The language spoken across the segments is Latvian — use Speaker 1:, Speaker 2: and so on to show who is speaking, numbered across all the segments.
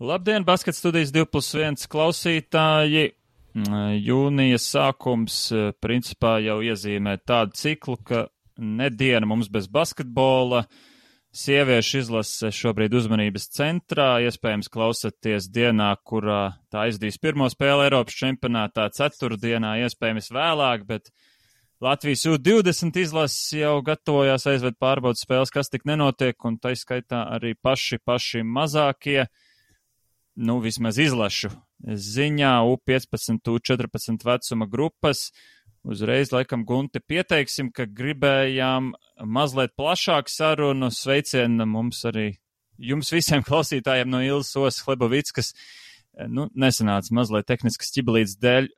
Speaker 1: Labdien, Basket studijas 2+1 klausītāji! Jūnijas sākums principā jau iezīmē tādu ciklu, ka nediena mums bez basketbola. Sieviešu izlase šobrīd uzmanības centrā. Iespējams klausaties dienā, kurā tā aizdīs pirmo spēli Eiropas čempionātā, ceturtdienā, iespējams vēlāk, bet Latvijas U20 izlases jau gatavojās aizved pārbaudas spēles, kas tik nenotiek, un tā skaitā arī paši mazākie. Vismaz izlašu ziņā U15, U14 vecuma grupas. Uzreiz, laikam, Gunte, pieteiksim, ka gribējām mazliet plašāku sarunu. Sveicienu mums arī jums visiem klausītājiem no Ilzas Osas Hlebovickas. Nesanāca mazliet tehniskas ķibelītes dēļ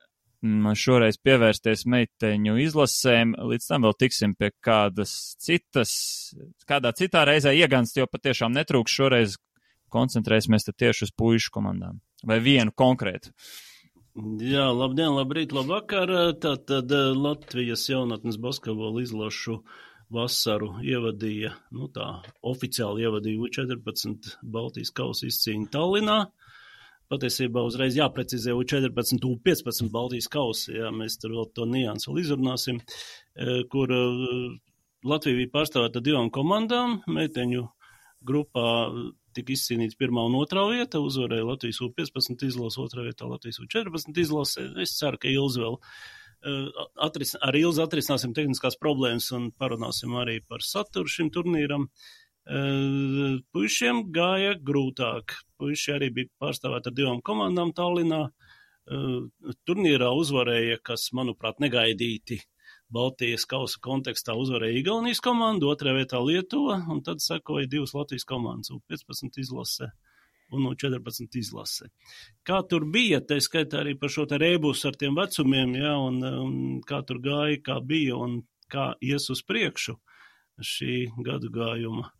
Speaker 1: šoreiz pievērsties meiteņu izlasēm. Līdz tam vēl tiksim pie kādā citā reizē ieganst, jo patiešām netrūks šoreiz. Koncentrēsimies tieši uz puišu komandām. Vai vienu konkrētu?
Speaker 2: Jā, labdien, labrīt, labvakar. Tātad Latvijas jaunatnes basketbola izlašu vasaru ievadīja, oficiāli ievadīja U14 Baltijas kausa izcīņu Tallinā. Patiesībā uzreiz jāprecizē U14, U15 Baltijas kausa, jā, mēs tur vēl to niansu vēl izrunāsim, kur Latvija bija pārstāvēta 2 komandām, meiteņu grupā tika izcīnīts 1. un 2. vieta, uzvarēja Latvijas U15 izlase, 2. vietā Latvijas U14 izlase. Es ceru, ka Ilze vēl ar Ilzi atrisināsim tehniskās problēmas un parunāsim arī par saturu šim turnīram. Puišiem gāja grūtāk. Puiši arī bija pārstāvēti ar 2 komandām Tallinā. Turnīrā uzvarēja, kas, manuprāt, negaidīti. Baltijas kausa kontekstā uzvarēja Igaunijas komanda, 2. vietā Lietuva, un tad sekoja 2 Latvijas komandas, U15 izlase un U14 izlase. Kā tur bija, tā skaitā arī par šo te rēbus ar tiem vecumiem, jā, un kā tur gāja, kā bija un kā ies uz priekšu šī gadu gājuma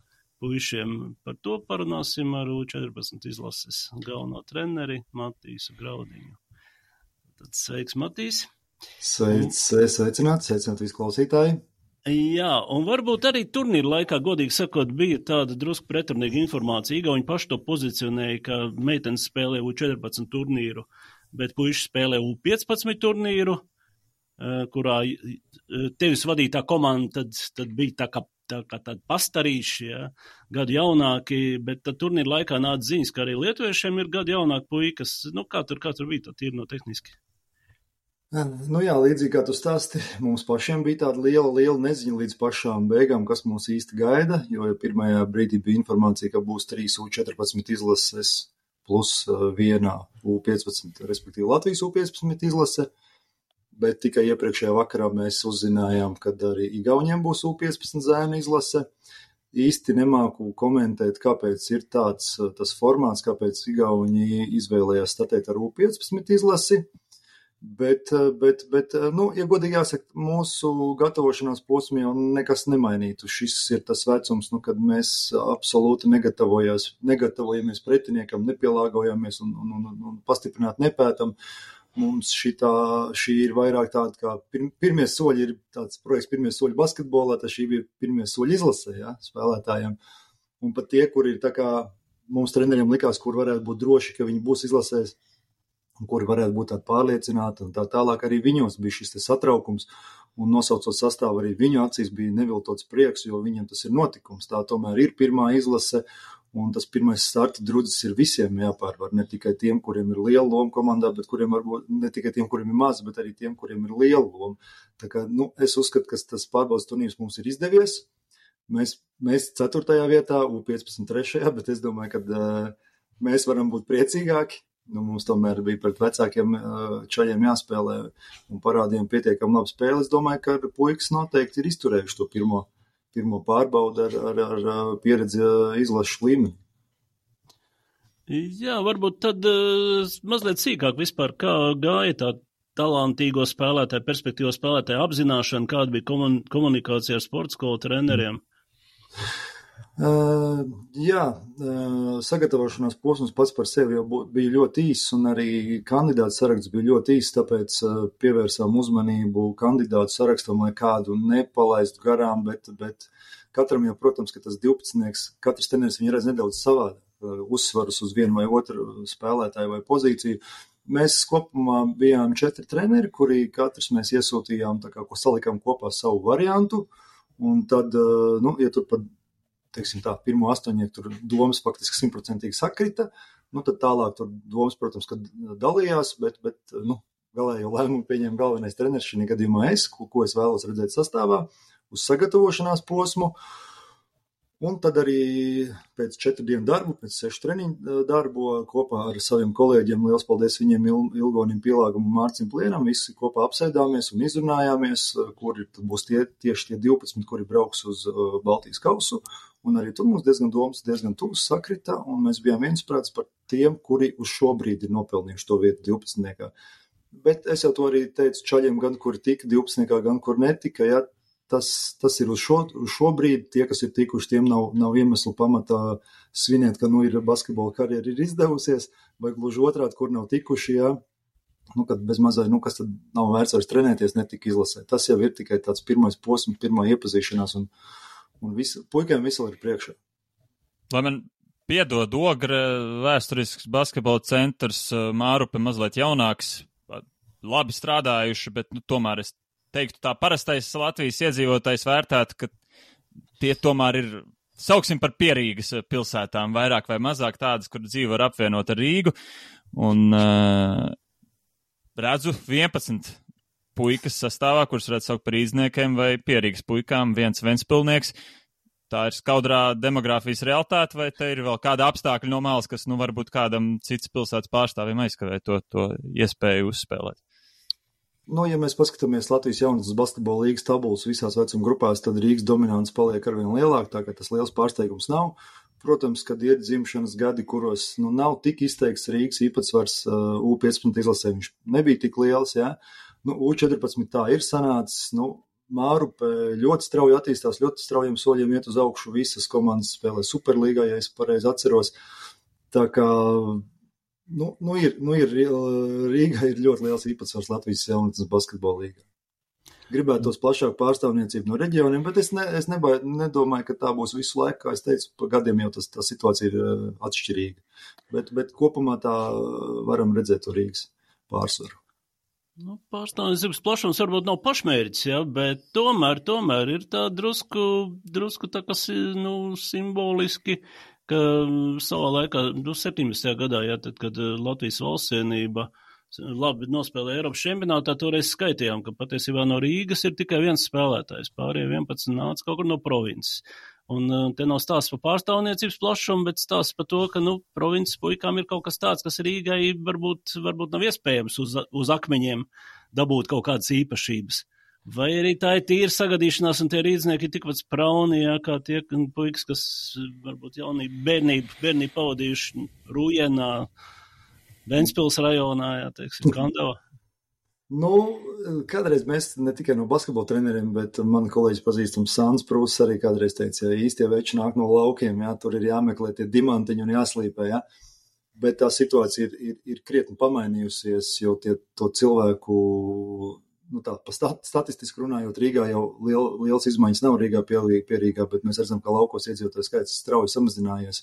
Speaker 2: puišiem. Par to parunāsim ar U14 izlases galveno treneri Matīsu Graudiņu. Tad sveiks, Matīs!
Speaker 3: Sveicināti visi klausītāji.
Speaker 2: Jā, un varbūt arī turnīra laikā, godīgi sakot, bija tāda drusku pretrunīga informācija. Igauņi paši to pozicionēja, ka meitenes spēlē U14 turnīru, bet puiši spēlē U15 turnīru, kurā tevis vadītā komanda tad bija tā kā tādi pastarīši, ja, gadu jaunāki, bet tad turnīra laikā nāca ziņas, ka arī lietuviešiem ir gadu jaunāki puikas. Kā tur bija tā tīri no tehniski?
Speaker 3: Jā, līdzīgi kā tu stāsti, mums pašiem bija tāda liela neziņa līdz pašām beigām, kas mūs īsti gaida, jo pirmajā brīdī bija informācija, ka būs 3 U14 izlases plus 1 U15, respektīvi Latvijas U15 izlase, bet tikai iepriekšējā vakarā mēs uzzinājām, ka arī Igauņiem būs U15 zēnu izlase. Īsti nemāku komentēt, kāpēc ir tas formāts, kāpēc Igauņi izvēlējās startēt ar U15 izlasi. Bet, ja godīgi jāsaka, mūsu gatavošanās posmā jau nekas nemainītu. Šis ir tas vecums, kad mēs absolūti negatavojamies pretiniekam, nepielāgojamies un pastiprināt nepētam. Mums šī ir vairāk tāda, kā pirmie soļi ir tāds projekts pirmie soļi basketbolā, tad šī bija pirmie soļi izlasē, ja, spēlētājiem. Un pat tie, kur ir tā kā mums treneriem likās, kur varētu būt droši, ka viņi būs izlasēs, kuri varētu būt tādi pārliecināti, un tā tālāk arī viņos bija šis satraukums, un nosaucot sastāvu arī viņu acīs bija neviltots prieks, jo viņiem tas ir notikums. Tā tomēr ir pirmā izlase, un tas pirmais starta drudzis ir visiem jāpārvar, ne tikai tiem, kuriem ir liela loma komandā, bet kuriem varbūt ne tikai tiem, kuriem ir maz, bet arī tiem, kuriem ir liela loma. Tā kā, es uzskatu, ka tas pārbaudas turnīrs mums ir izdevies. Mēs 4. vietā, U15 3. bet es domāju, ka mēs varam būt priecīgāki. Mums tomēr bija pret vecākiem čaļiem jāspēlē un parādījām pietiekami labu spēli. Es domāju, ka puikas noteikti ir izturējuši to pirmo pārbaudu ar pieredzi izlašu līmeni.
Speaker 2: Jā, varbūt tad mazliet sīkāk vispār, kā gāja tā talantīgo spēlētāju, perspektīvo spēlētāju apzināšana, kāda bija komunikācija ar sporta skolu treneriem?
Speaker 3: Sagatavošanās posms pats par sevi jau bija ļoti īss, un arī kandidātu saraksts bija ļoti īss, tāpēc pievērsām uzmanību kandidātu sarakstam, lai kādu nepalaistu garām, bet katram jau, protams, ka tas 12, katrs treneris viņu redz nedaudz savādāk. uzsvarus uz vienu vai otru spēlētāju vai pozīciju. Mēs kopumā bijām 4 treneri, kuri katrs mēs iesūtījām, tā kā, ko salikām kopā savu variantu, un tad, ja tur pat, teiksim tā, pirmo 8 tur domas faktiski 100% sakrita, tad tālāk tur domas, protams, kad dalījās, bet galējo lēmumu pieņēma galvenais treneris, šī gadījumā es, ko es vēlos redzēt sastāvā, uz sagatavošanās posmu. Un tad arī pēc 4 dienu darbu, pēc 6 treniņu darbu kopā ar saviem kolēģiem, liels paldies viņiem, Ilgonim Pielāgam un Mārcim Plienam, visi kopā apsēdāmies un izrunājāmies, kuri būs tieši tie 12, kuri brauks uz Baltijas kausu. Un arī tur mums diezgan tuvs sakrita, un mēs bijām viensprāts par tiem, kuri uz šo brīdi ir nopelnījuši to vietu 12. Bet es jau to arī teicu čaļiem, gan kuri tika 12. gan kur netika, ja. Tas ir uz šo brīdi, tie, kas ir tikuši, tiem nav iemeslu pamatā svinēt, ka ir basketbola karjera ir izdevusies, vai gluži otrādi, kur nav tikuši, jā, kad bez mazai, kas tad nav vērts vairs trenēties, netika izlasē. Tas jau ir tikai tāds pirmais posms, pirmā iepazīšanās, un puikiem visu ir priekšā.
Speaker 1: Lai man piedod Ogre, vēsturisks basketbola centrs, Mārupe mazliet jaunāks, labi strādājuši, bet tomēr es teiktu, tā parastais Latvijas iedzīvotājs vērtētu, ka tie tomēr ir, sauksim par pierīgas pilsētām, vairāk vai mazāk tādas, kur dzīve var apvienot ar Rīgu, un redzu 11 puikas sastāvā, kurus redz saukt par īzniekiem vai pierīgas puikām, viens ventspilnieks. Tā ir skaudrā demogrāfijas realitāte, vai te ir vēl kāda apstākļa no malas, kas, varbūt kādam cits pilsētas pārstāvim aizkavē to iespēju uzspēlēt?
Speaker 3: Ja mēs paskatāmies Latvijas jaunatnes basketbola līgas tabulas visās vecuma grupās, tad Rīgas dominants paliek arvien lielāk, tā ka tas liels pārsteigums nav. Protams, kad ir dzimšanas gadi, kuros nav tik izteikts Rīgas īpatsvars U15 izlasē, viņš nebija tik liels, jā. U14 tā ir sanācis, Mārupe ļoti strauji attīstās, ļoti straujiem soļiem iet uz augšu, visas komandas spēlē Superlīgā, ja es pareizi atceros. Tā kā Rīgā ir ļoti liels īpatsvars Latvijas jaunatnes basketbola līgā. Gribētos plašāku pārstāvniecību no reģioniem, bet es nedomāju, ka tā būs visu laiku, kā es teicu, pa gadiem jau tā situācija ir atšķirīga. Bet kopumā tā varam redzēt to Rīgas pārsvaru.
Speaker 2: Pārstāvniecības plašums varbūt nav pašmērķis, ja, bet tomēr ir tā drusku tā, kas simboliski, ka savā laikā, 17. gadā, ja, tad, kad Latvijas valstsienība labi nospēlēja Eiropas čempionātā, toreiz skaitījām, ka patiesībā no Rīgas ir tikai viens spēlētājs, pārējie 11 nāca kaut kur no provinces. Un te nav stāsts par pārstāvniecības plašumu, bet stāsts par to, ka, provinces puikām ir kaut kas tāds, kas Rīgai varbūt nav iespējams uz akmeņiem dabūt kaut kādas īpašības. Vai arī tā ir tīra sagadīšanās, un tie rīdznieki ir tikpat sprauni, jā, kā tie puikas, kas varbūt bērnību pavadījuši Rūjienā, Ventspils rajonā, jā, teiksim, Kandavā.
Speaker 3: Kādreiz mēs ne tikai no basketbola treneriem, bet man kolēģis pazīstams Sāns Prūss arī kādreiz teica, ja īstie veči nāk no laukiem, jā, tur ir jāmeklē tie dimantiņi un jāslīpē, jā. Bet tā situācija ir krietni pamainījusies, jo to cilvēku, statistiski runājot, Rīgā jau liels izmaiņas nav Rīgā pie Rīgā, bet mēs redzam, ka laukos iedzīvotāju skaits strauji samazinājies.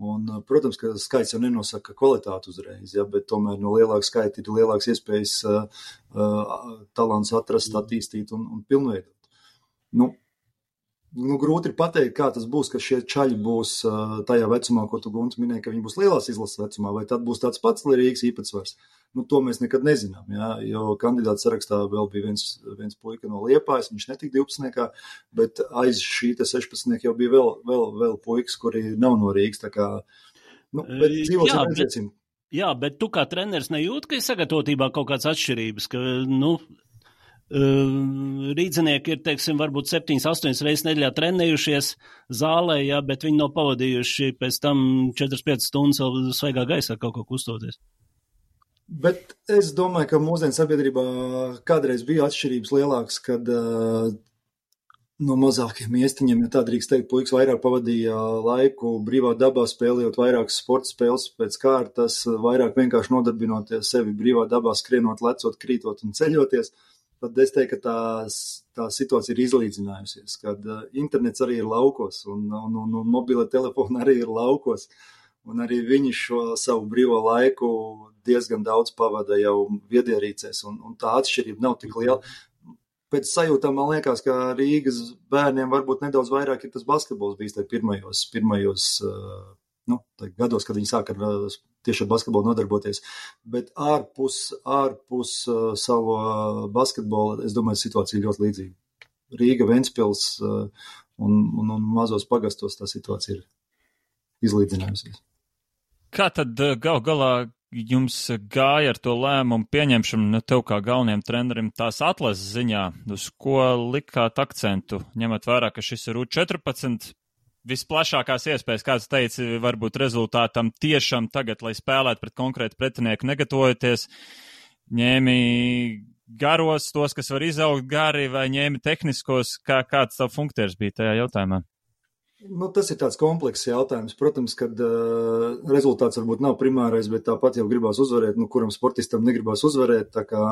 Speaker 3: Un, protams, ka skaits jau nenosaka kvalitāti uzreiz, ja, bet tomēr no lielāka skaita ir lielāks iespējas talants atrast, attīstīt un pilnveidot. Grūti ir pateikt, kā tas būs, ka šie čaļi būs tajā vecumā, ko tu, Gunts, minēji, ka viņi būs lielās izlases vecumā, vai tad būs tāds pats Rīgas īpatsvars. To mēs nekad nezinām, jā, jo kandidātu sarakstā vēl bija viens puika no Liepājas, viņš netika 12. Bet aiz šī 16. jau bija vēl puikas, kuri nav no Rīgas, tā kā, bet dzīvosim redzēsim.
Speaker 2: Jā, bet tu kā treneris nejūt, ka ir sagatavotībā kaut kāds atšķirības, ka, rīdzinieki ir, teiksim, varbūt 7-8 reizes nedēļā trenējušies zālē, jā, bet viņi nav pavadījuši pēc tam 4-5 stundas vēl svaigā gaisā kaut ko kustoties.
Speaker 3: Bet es domāju, ka mūsdienu sabiedrībā kādreiz bija atšķirības lielākas, kad no mazākiem iestiņiem, ja tā drīkst teikt, puikas vairāk pavadīja laiku brīvā dabā, spēlējot vairākas sporta spēles pēc kārtas, vairāk vienkārši nodarbinoties sevi brīvā dabā, skrienot, lecot, krītot un ceļoties. Tad es teiktu, ka tā situācija ir izlīdzinājusies, kad internets arī ir laukos un mobila telefona arī ir laukos. un arī viņi šo savu brīvo laiku diezgan daudz pavada jau viedierīcēs, un tā atšķirība nav tik liela. Pēc sajūtām man liekas, ka Rīgas bērniem varbūt nedaudz vairāk ir tas basketbols bijis pirmajos gados, kad viņi sāka tieši ar basketbolu nodarboties. Bet ārpus savu basketbolu, es domāju, situācija ļoti līdzīga. Rīga, Ventspils un mazos pagastos tā situācija ir izlīdzinājusies.
Speaker 1: Kā tad galā jums gāja ar to lēmumu pieņemšanu, tev kā galvenajam trenerim tās atlases ziņā, uz ko likāt akcentu, ņemot vērā, ka šis ir U14, visplašākās iespējas, kāds teica, varbūt rezultātam tiešām tagad, lai spēlētu pret konkrētu pretinieku negatavojoties, ņēmi garos tos, kas var izaugt gari, vai ņēmi tehniskos, kāds tavu funkcijas bija tajā jautājumā?
Speaker 3: Tas ir tāds komplekss jautājums. Protams, kad rezultāts varbūt nav primārais, bet tāpat jau gribās uzvarēt, kuram sportistam negribās uzvarēt, tā kā,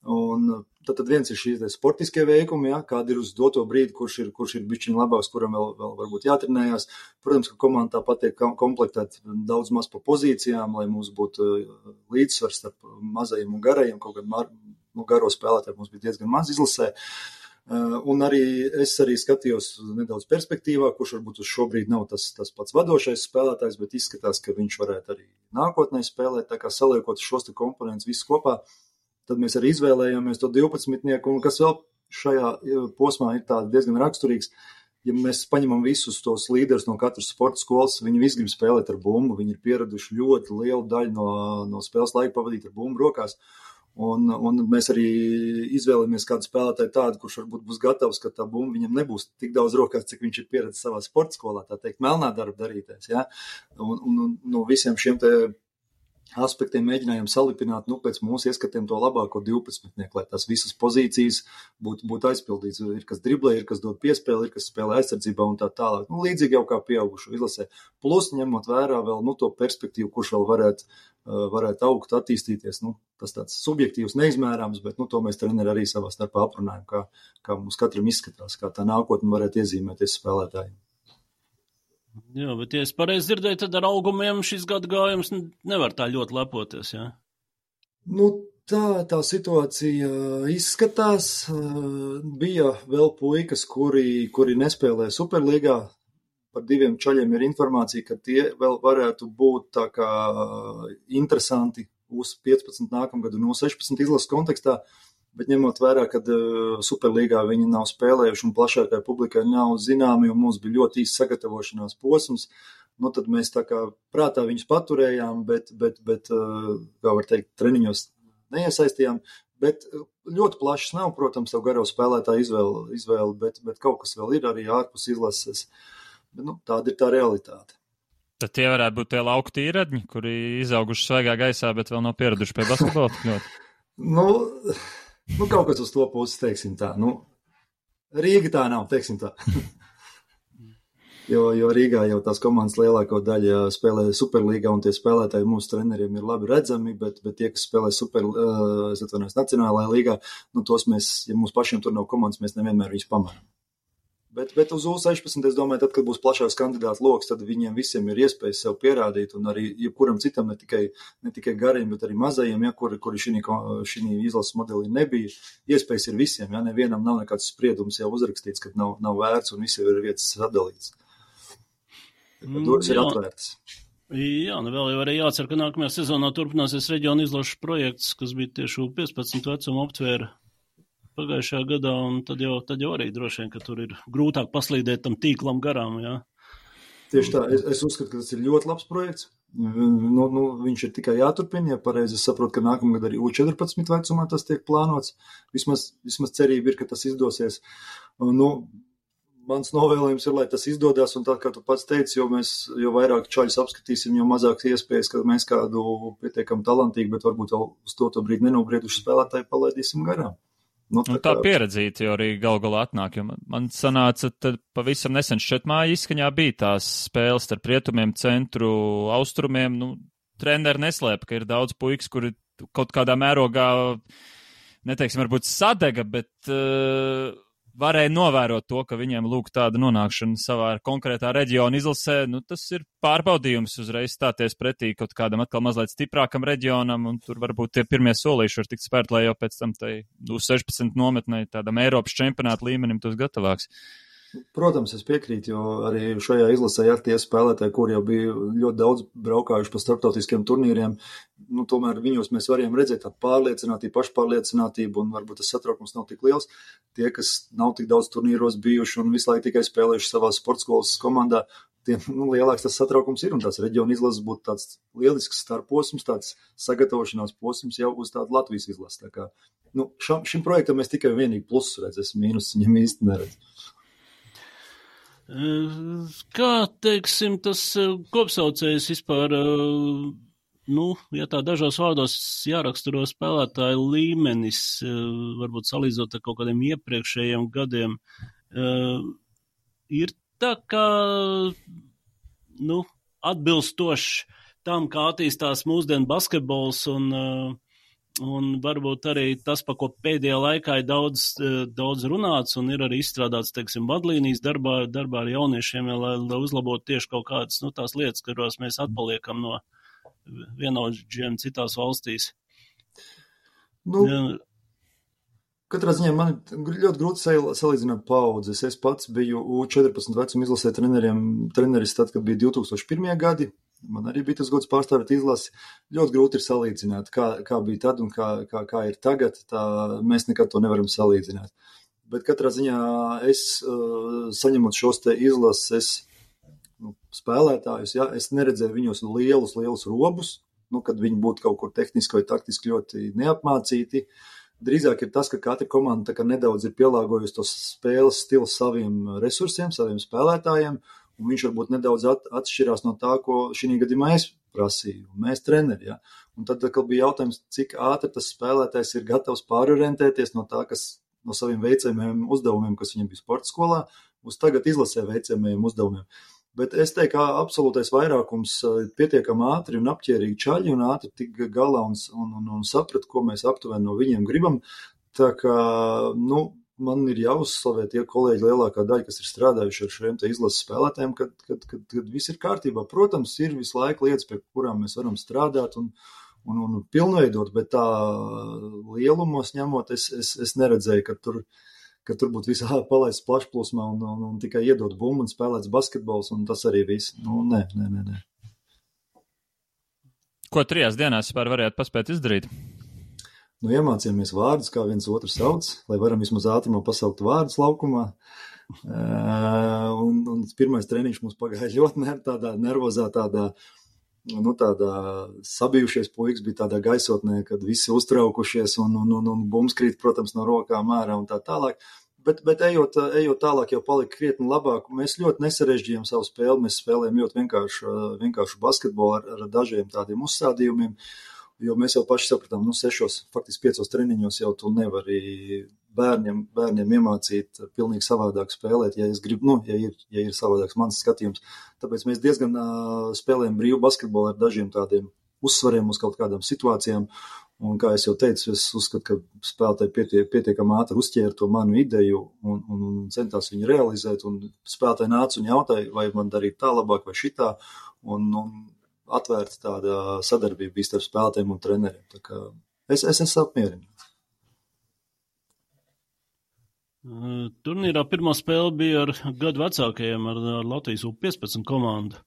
Speaker 3: un tad viens ir šīs sportiskie veikumi, ja, kādi ir uz doto brīdi, kurš ir bišķiņ labāks, kuram vēl varbūt jātrenējās. Protams, ka komanda tāpat tiek komplektēt daudz maz pa pozīcijām, lai mums būtu līdzsvars starp mazajiem un garajiem, kaut gan garo spēlētāji mums bija diezgan maz izlasē. Un es arī skatījos nedaudz perspektīvā, kurš varbūt uz šobrīd nav tas pats vadošais spēlētājs, bet izskatās, ka viņš varētu arī nākotnē spēlēt, tā kā saliekot šos te komponentus visus kopā, tad mēs arī izvēlējāmies to 12-nieku, un kas vēl šajā posmā ir tā diezgan raksturīgs, ja mēs paņemam visus tos līderus no katras sporta skolas, viņi visi grib spēlēt ar bumbu, viņi ir pieraduši ļoti lielu daļu no spēles laika pavadīt ar bumbu rokās. Un mēs arī izvēlamies kādu spēlētāju tādu, kurš varbūt būs gatavs, ka tā bumba viņam nebūs tik daudz rokās, cik viņš ir pieredzējis savā sporta skolā, tā teikt, melnā darba darīties. Ja? Un no visiem šiem te aspektiem mēģinājām salipināt, pēc mūsu ieskatiem to labāko 12-nieku, lai tās visas pozīcijas būtu aizpildīts. Ir kas driblē, ir kas dod piespēli, ir kas spēlē aizsardzībā un tā tālāk. Līdzīgi jau kā pieaugušu izlasē. Plus, ņemot vērā vēl to perspektīvu, kurš vēl varētu augt, attīstīties. Tas tāds subjektīvs, neizmērāms, bet to mēs treneri arī savā starpā aprunājam, kā mums katram izskatās, kā tā nākotne varētu iezīmēties spēlētājiem.
Speaker 2: Jā, bet, ja es pareizi dzirdēju, tad ar augumiem šis gada gājums nevar tā ļoti lepoties, jā?
Speaker 3: Tā situācija izskatās. Bija vēl puikas, kuri nespēlē Superlīgā. Par 2 čaļiem ir informācija, ka tie vēl varētu būt tā kā interesanti uz 15 nākamgadu no 16 izlases kontekstā. Bet ņemot vērā, ka Superlīgā viņi nav spēlējuši un plašākai publikai nav zināmi, un mums bija ļoti īsts sagatavošanās posms, tad mēs tā kā prātā viņus paturējām, bet kā var teikt, treniņos neiesaistījām. Bet ļoti plašs nav, protams, tev garo spēlētāju izvēle, bet kaut kas vēl ir arī ārpus izlases. Bet, tāda ir tā realitāte.
Speaker 1: Tad tie varētu būt tie lauku tīradņi, kuri izauguši svaigā gaisā, bet vēl nav pieraduši pie basketbola.
Speaker 3: Kaut kas uz to puses, teiksim tā. Rīga tā nav, teiksim tā. jo Rīgā jau tās komandas lielāko daļu spēlē Superlīgā, un tie spēlētāji mūsu treneriem ir labi redzami, bet tie, kas spēlē Nacionālajā līgā, tos mēs, ja mums pašiem tur nav komandas, mēs nevienmēr viņus pamaram. Bet uz U16, es domāju, tad, kad būs plašāks kandidātu loks, tad viņiem visiem ir iespējas sev pierādīt, un arī jebkuram citam, ne tikai gariem, bet arī mazajiem, kuri šī izlases modelī nebija. Iespējas ir visiem, nevienam nav nekāds spriedums jau uzrakstīts, kad nav vērts un visi ir vietas sadalīts. Durvis ir atvērtas.
Speaker 2: Jā, vēl jau arī jācer, ka nākamajā sezonā turpināsies reģiona izlašu projekts, kas bija tieši U15 vecuma aptvēra pagājušajā gadā, un tad jau arī droši vien, ka tur ir grūtāk paslīdēt tam tīklam garām, jā.
Speaker 3: Tieši tā, es uzskatu, ka tas ir ļoti labs projekts. Viņš ir tikai jāturpina, ja pareizi es saprotu, ka nākamgad arī U14 vecumā tas tiek plānots. Vismaz cerība ir, ka tas izdosies. Mans novēlējums ir, lai tas izdodas, un tā, kā tu pats teici, jo vairāk čaļus apskatīsim, jo mazāks iespējas, ka mēs kādu pietiekam talantīgu, bet varbūt vēl uz to brīdi nenobrieduši spēlētāju palaidīsim garām.
Speaker 1: Tā pieredzīta jau arī galā atnāk, jo man sanāca, tad pavisam nesen Šķetmāja izskaņā bija tās spēles starp rietumiem, centru, austrumiem. Treneri neslēpa, ka ir daudz puikas, kuri kaut kādā mērogā, neteiksim, varbūt sadega, bet varēja novērot to, ka viņiem lūk tāda nonākšana savā konkrētā reģiona izlasē, nu tas ir pārbaudījums uzreiz stāties pretī kaut kādam atkal mazliet stiprākam reģionam, un tur varbūt tie pirmie solīši var tikt spērt, lai jau pēc tam tai 16 nometnei tādam Eiropas čempionāta līmenim tos gatavāks.
Speaker 3: Protams, es piekrītu, jo arī šajā izlasē ir tie spēlētāji, kur jau bija ļoti daudz braukājuši pa starptautiskiem turnīriem. Nu, tomēr viņos mēs varējām redzēt tādu pārliecinātību, pašpārliecinātību, un varbūt tas satraukums nav tik liels. Tie, kas nav tik daudz turnīros bijuši un visu laiku tikai spēlējuši savā sportskolas komandā, tiem lielāks tas satraukums ir, un tās reģiona izlases būtu tāds lielisks starposms, tāds sagatavošanās posms jau uz tādu Latvijas izlases. Tā kā, šim projektam mēs tikai vienīgi plusus redzēs, mīnus viņam īsti neredz.
Speaker 2: Kā, teiksim, tas kopsaucējs vispār, ja tā dažos vārdos jāraksturo spēlētāju līmenis, varbūt salīdzot ar kaut kādiem iepriekšējiem gadiem, ir tā kā, atbilstoši tam, kā attīstās mūsdienu basketbols un varbūt arī tas, pa ko pēdējā laikā ir daudz runāts un ir arī izstrādāts, teiksim, vadlīnijas darbā ar jauniešiem, lai uzlabotu tieši kaut kādas, tās lietas, kurās mēs atpaliekam no vienaudžiem citās valstīs.
Speaker 3: Katrā ziņā man ļoti grūti salīdzināt paudzes. Es pats biju U14 vecuma izlasē treneris tad, kad bija 2001. gadi. Man arī bija tas gods pārstāvēt izlasi. Ļoti grūti ir salīdzināt, kā bija tad un kā ir tagad. Mēs nekad to nevaram salīdzināt. Bet katrā ziņā es, saņemot šos te izlases spēlētājus, es neredzēju viņos lielus robus, kad viņi būtu kaut kur tehniski vai taktiski ļoti neapmācīti. Drīzāk ir tas, ka katra komanda nedaudz ir pielāgojusi tos spēles stilu saviem resursiem, saviem spēlētājiem, un viņš varbūt nedaudz atšķirās no tā, ko šī gadījumā es prasīju, mēs treneri. Ja? Un tad bija jautājums, cik ātri tas spēlētājs ir gatavs pārorientēties no tā, no saviem veicamajiem uzdevumiem, kas viņam bija sporta skolā, uz tagad izlasē veicamajiem uzdevumiem. Bet es teiktu, ka absolūtais vairākums pietiekami ātri un apķērīgi čaļi un ātri tik galā un saprat, ko mēs aptuveni no viņiem gribam. Tā kā, man ir jāuzslavē tie kolēģi lielākā daļa, kas ir strādājuši ar šiem te izlases spēlētājiem, kad viss ir kārtībā. Protams, ir visu laiku lietas, pie kurām mēs varam strādāt un pilnveidot, bet tā lielumos ņemot, es neredzēju, ka tur būtu visā palaists plašplūsmā un tikai iedot bumbu un spēlēts basketbols, un tas arī viss. Nē.
Speaker 1: Ko 3 dienās vispār varētu paspēt izdarīt?
Speaker 3: Iemācījāmies vārdus, kā viens otru sauc, lai varam vismaz ātrumā pasaukt vārdus laukumā. Un pirmais treniņš mums pagāja ļoti tādā nervozā, tādā sabijušies puikas bija tādā gaisotnē, kad visi uztraukušies un bums krīt, protams, no rokām ārā un tā tālāk. Bet ejot tālāk jau palika krietni labāk. Mēs ļoti nesarežģījām savu spēli, mēs spēlējām ļoti vienkāršu basketbolu ar dažiem tādiem uzstādījumiem. Jo mēs jau paši sapratām, 5 treniņos jau tu nevari bērniem iemācīt pilnīgi savādāk spēlēt, ja es gribu, ja ir savādāks mans skatījums. Tāpēc mēs diezgan spēlējam brīvu basketbolu ar dažiem tādiem uzsvariem uz kaut kādām situācijām. Un, kā es jau teicu, es uzskatu, ka spēlētāji pietiekami ātri uzķēra to manu ideju un centās viņu realizēt. Un spēlētāji nāca un jautāja, vai man darīt tā labāk vai šitā. Un atvērta tāda sadarbība bija starp spēlētājiem un treneriem. Tā kā es esmu apmierināts.
Speaker 2: Turnīrā pirmā spēle bija ar gadu vecākajiem, ar Latvijas U15 komandu.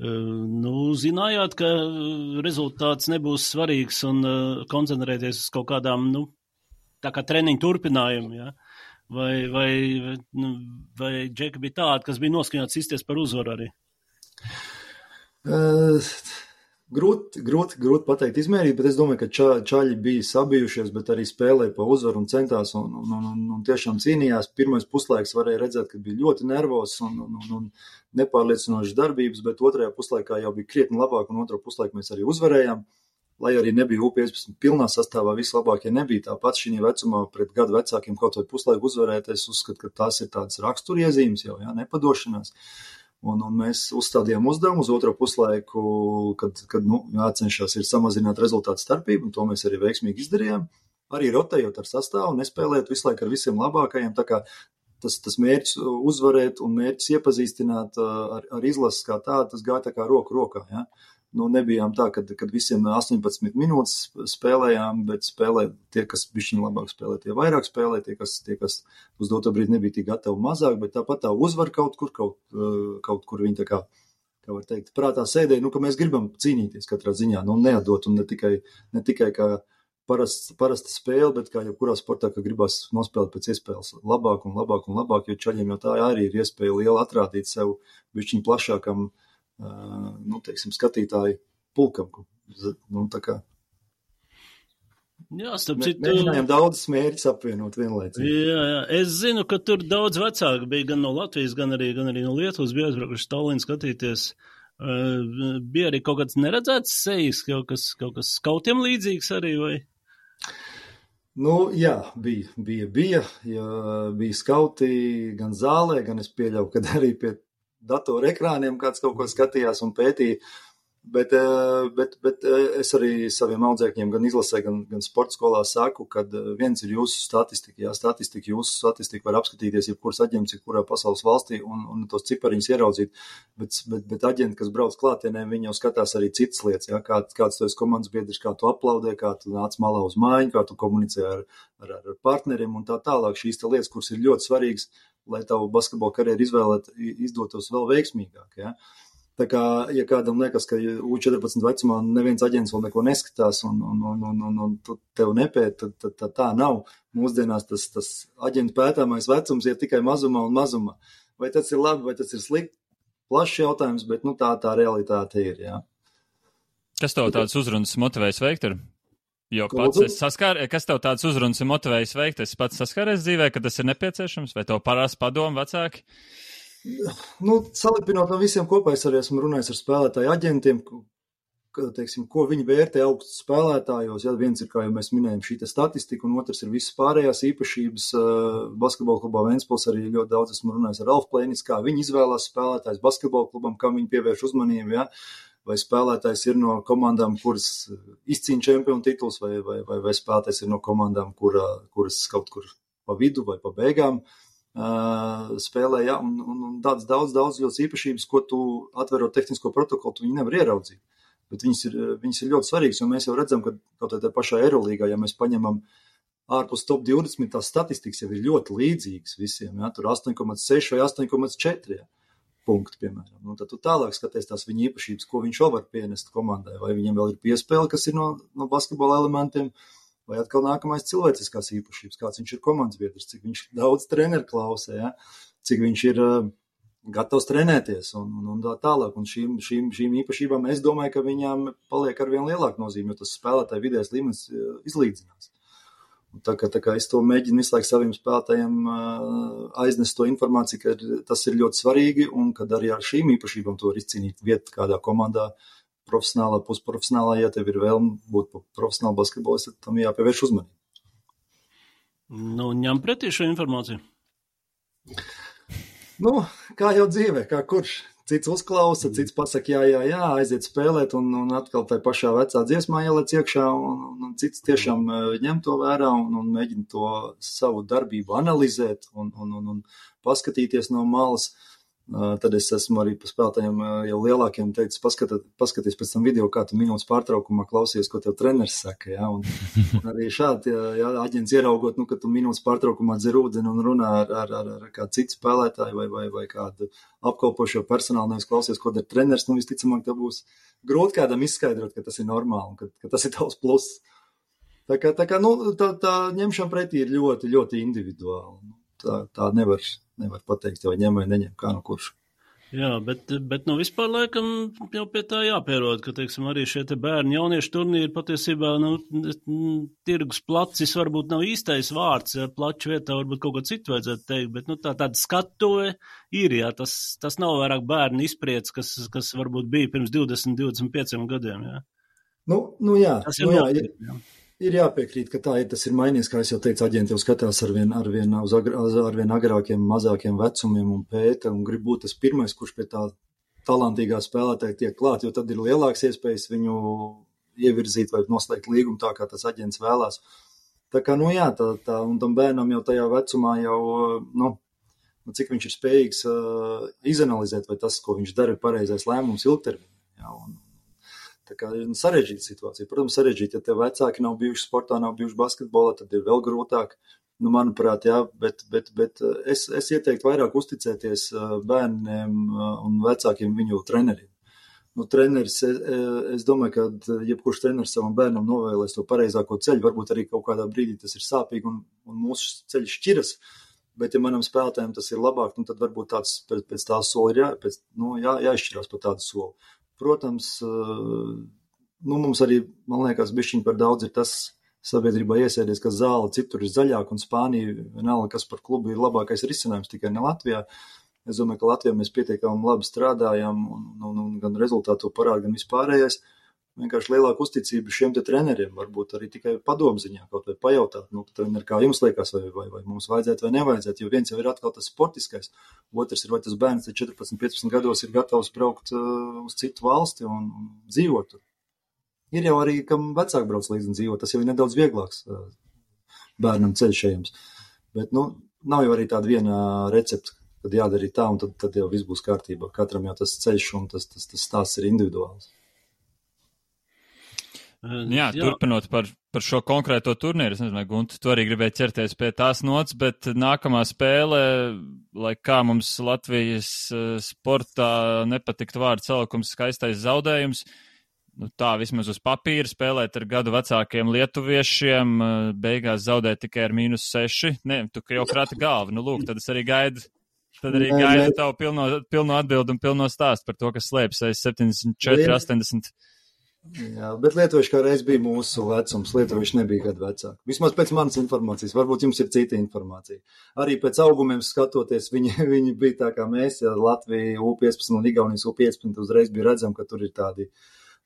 Speaker 2: Zinājāt, ka rezultāts nebūs svarīgs un koncentrēties uz kaut kādām, tā kā treniņu turpinājumu, ja? Vai džeki bija tādi, kas bija noskaņots izties par uzvaru arī?
Speaker 3: Grūti pateikt izmērīt, bet es domāju, ka čaļi bija sabijušies, bet arī spēlēja pa uzvaru un centās un tiešām cīnījās. Pirmais puslaiks varēja redzēt, ka bija ļoti nervos un nepārliecinošas darbības, bet otrajā puslaikā jau bija krietni labāk un otro puslaiku mēs arī uzvarējām. Lai arī nebija U15 pilnā sastāvā, vislabākie nebija tāpat šī vecumā pret gadu vecākiem kaut vai puslaiku uzvarēt. Es uzskatu, ka tās ir tādas raksturiezīmes jau, nepadošanās. Un mēs uzstādījām uzdevumu uz otro puslaiku, kad jācenšas ir samazināt rezultātu starpību, un to mēs arī veiksmīgi izdarījām. Arī rotējot ar sastāvu, nespēlējot visu laiku ar visiem labākajiem. Tā kā tas mērķis uzvarēt un mērķis iepazīstināt ar izlases kā tādu, tas gāja tā kā roku rokā, ja. Nu, nebijām tā, kad visiem 18 minūtes spēlējām, bet spēlē tie, kas bišķiņ labāk spēlē, tie vairāk spēlē, tie, kas uz doto brīdi nebija tik gatavi mazāk, bet tāpat tā uzvar kaut kur viņi tā kā var teikt, prātā sēdēja, ka mēs gribam cīnīties katrā ziņā, neatdot un ne tikai kā parasta spēle, bet kā jebkurā sportā, ka gribas nospēlēt pēc iespējas labāk un labāk un labāk, jo čaļiem jau tā arī ir iespēja liela atrādīt sev bišķiņ plašākam skatītāju pulkam. Tā kā.
Speaker 2: Jā, starp citu.
Speaker 3: Mēģinājām daudzas mērķus apvienot vienlaicīgi.
Speaker 2: Jā. Es zinu, ka tur daudz vecāki bija gan no Latvijas, gan arī no Lietuvas, bija aizbraukuši Tallinnā skatīties. Bija arī kaut kāds neredzēts sejas, kaut kas skautiem līdzīgs arī, vai?
Speaker 3: Jā, bija skauti gan zālē, gan es pieļauju, kad arī pie datoru ekrāniem kāds kaut ko skatījās un pētīja, bet es arī saviem audzēkņiem gan izlasē, gan sporta skolā saku, kad viens ir jūsu statistika, jūsu statistika var apskatīties jebkuras aģents, jebkurā pasaules valstī un tos cipariņus ieraudzīt, bet aģenti, kas brauc klātienē, viņi jau skatās arī citas lietas, ja, kāds tu esi komandas biedrs, kā tu aplaudē, kā tu nāc malā uz mājiņu, kā tu komunicē ar partneriem un tā tālāk, šīs te lietas, kuras ir ļoti svarīgas, lai tavu basketbola karjeru izdotos vēl veiksmīgāk, ja. Tā kā, ja kādam liekas, ka U14 vecumā neviens aģents vēl neko neskatās un tev nepēt, tad tā nav. Mūsdienās tas aģentu pētāmais vecums ir tikai mazumā un mazumā. Vai tas ir labi, vai tas ir slikti? Plašs jautājums, bet tā realitāte ir, jā.
Speaker 1: Kas tev tāds uzrunas motivējis veikt ir? Jo pats kas tev tāds uzrunas ir motivējis veikt? Es pats saskāries dzīvē, ka tas ir nepieciešams, vai tev parās padomu vecāki?
Speaker 3: Salipinot no visiem kopā, es arī esmu runājis ar spēlētāju aģentiem, ko viņi vērtē augstu spēlētājos. Ja, viens ir, kā jau mēs minējam, šī statistika, un otrs ir visas pārējās īpašības. Basketbola klubā Ventspils arī ļoti daudz esmu runājis ar Alfu Plēnis, kā viņi izvēlās spēlētājs basketbola klubam, kam viņi pievērš uzmanību, ja. Vai spēlētājs ir no komandām, kuras izcīna čempionu tituls, vai spēlētājs ir no komandām, kuras kaut kur pa vidu vai pa beigām spēlē, ja, un daudz ļoti īpašības, ko tu atverot tehnisko protokolu, tu viņi nevar ieraudzīt. Bet viņas ir ļoti svarīgas, jo mēs jau redzam, ka kaut tā pašā Eirolīgā, ja mēs paņemam ārpus top 20, tās statistikas jau ir ļoti līdzīgas visiem, ja, tur 8,6 vai 8,4, ja. Punkti, piemēram. Un tad tu tālāk skaties tās viņa īpašības, ko viņš vēl var pienest komandai, vai viņam vēl ir piespēle, kas ir no basketbola elementiem, vai atkal nākamais cilvēciskās īpašības, kāds viņš ir komandas biedrs, cik viņš daudz treneru klausē, ja? Cik viņš ir gatavs trenēties un tā tālāk. Un šīm īpašībām es domāju, ka viņām paliek arvien lielāka nozīme, jo tas spēlētāju vidējais līmenis izlīdzinās. Tā kā es to mēģinu visu laiku saviem spēlētājiem aiznest to informāciju, ka tas ir ļoti svarīgi un kad arī ar šīm īpašībām to var izcīnīt vietu kādā komandā, profesionālā, pusprofesionālā, ja tev ir vēlme būt profesionāli basketbolis, tad tam jāpievērš uzmanību.
Speaker 2: Ņem pretī šo informāciju?
Speaker 3: Kā jau dzīvē, kā kurš. Cits uzklausa, cits pasaka jā, aiziet spēlēt un atkal tai pašā vecā dziesmā ielec iekšā un cits tiešām ņem to vērā un mēģina to savu darbību analizēt un paskatīties no malas. Tad es esmu arī pa spēlētājiem jau lielākiem teicis, paskaties pēc tam video, kā tu minūtes pārtraukumā klausies, ko tev treneris saka, ja, un arī šādi, ja aģents ieraugot, ka tu minūtes pārtraukumā dzer ūdeni un runā ar kādu citu spēlētāju vai kādu apkalpošo personālu, nevis klausies, ko dara treneris, visticamāk, tev būs grūti kādam izskaidrot, ka tas ir normāli un ka tas ir tavs pluss. Tā ņemšana pretī ir ļoti, ļoti individuāli. Tā nevar pateikt, vai ņem vai neņem, kā no kurš.
Speaker 2: Jā, bet vispār laikam jau pie tā jāpierod, ka, teiksim, arī šie te bērni jauniešu turnīri patiesībā, tirgus placis varbūt nav īstais vārds, ja, plaču vietā varbūt kaut ko citu vajadzētu teikt, bet, tāda skatuve ir, jā, tas nav vairāk bērni izpriec, kas varbūt bija pirms 20-25 gadiem, jā.
Speaker 3: Jā.
Speaker 2: Tas ir nopietni, jā.
Speaker 3: Ir jāpiekrīt, ka tā ir, tas ir mainījies, kā es jau teicu, aģenti jau skatās arvien agrākiem, mazākiem vecumiem un pēta un grib būt tas pirmais, kurš pie tā talantīgā spēlētāja tiek klāt, jo tad ir lielāks iespējas viņu ievirzīt vai noslēgt līgumu tā, kā tas aģents vēlās. Tā kā, un tam bērnam jau tajā vecumā jau, cik viņš ir spējīgs izanalizēt, vai tas, ko viņš dara, ir pareizais lēmums ilgtermiņā. Jā, tā kā ir sarežģīta situācija. Protams, sarežģīta, ja tev vecāki nav bijuši sportā, nav bijuši basketbolā, tad ir vēl grūtāk. Manuprāt, jā, bet es ieteiktu vairāk uzticēties bērniem un vecākiem viņu treneriem. Treneris, es domāju, ka jebkurš treneris savam bērnam novēlēs to pareizāko ceļu, varbūt arī kaut kādā brīdī tas ir sāpīgi un mūsu ceļš šķiras, bet ja manam spēlētājiem tas ir labāk, tad varbūt tāds pēc tā soli ir jāizšķirās par tādu soli. Protams, mums arī, man liekas, bišķiņ par daudz ir tas sabiedrībā iesēdies, ka zāle citur ir zaļāka un Spānija, vienalga, kas par klubu ir labākais risinājums, tikai ne Latvijā. Es domāju, ka Latvijā mēs pietiekami labi strādājam un gan rezultātu parāda, gan vispārējais. Vienkārši lielāka uzticība šiem te treneriem, varbūt arī tikai padomziņā kaut vai pajautāt, treneri, kā jums liekas, vai mums vajadzētu vai nevajadzētu, jo viens jau ir atkal tas sportiskais, otrs ir, vai tas bērns 14-15 gados ir gatavs braukt uz citu valsti un dzīvot. Ir jau arī, kam vecāki brauc līdzi un dzīvo, tas jau ir nedaudz vieglāks bērnam ceļš ejams. Bet, nav jau arī tāda viena recepta, kad jādara tā, un tad jau viss būs kārtībā. Katram jau tas ceļš un tas stāsts ir individuāls.
Speaker 1: Jā, turpinot par šo konkrēto turnīru, es nezinu, Gunti, tu arī gribēji ķerties pie tās nots, bet nākamā spēle, lai kā mums Latvijas sportā nepatikt vārdu salikums skaistais zaudējums, tā vismaz uz papīra spēlēt ar gadu vecākiem lietuviešiem, beigās zaudēt tikai ar -6. Ne, tu jau krāti galvu. Lūk, tad es arī gaidu tavu pilno atbildi un pilno stāstu par to, kas slēpjas aiz 74, 80.
Speaker 3: Jā, bet lietuvieši kā reiz bija mūsu vecums, lietuvieši nebija gadu vecāki. Vismaz pēc manas informācijas, varbūt jums ir cita informācija. Arī pēc augumiem skatoties, viņi bija tā kā mēs, ja Latvija U15 un Igaunijas U15 uzreiz bija redzam, ka tur ir tādi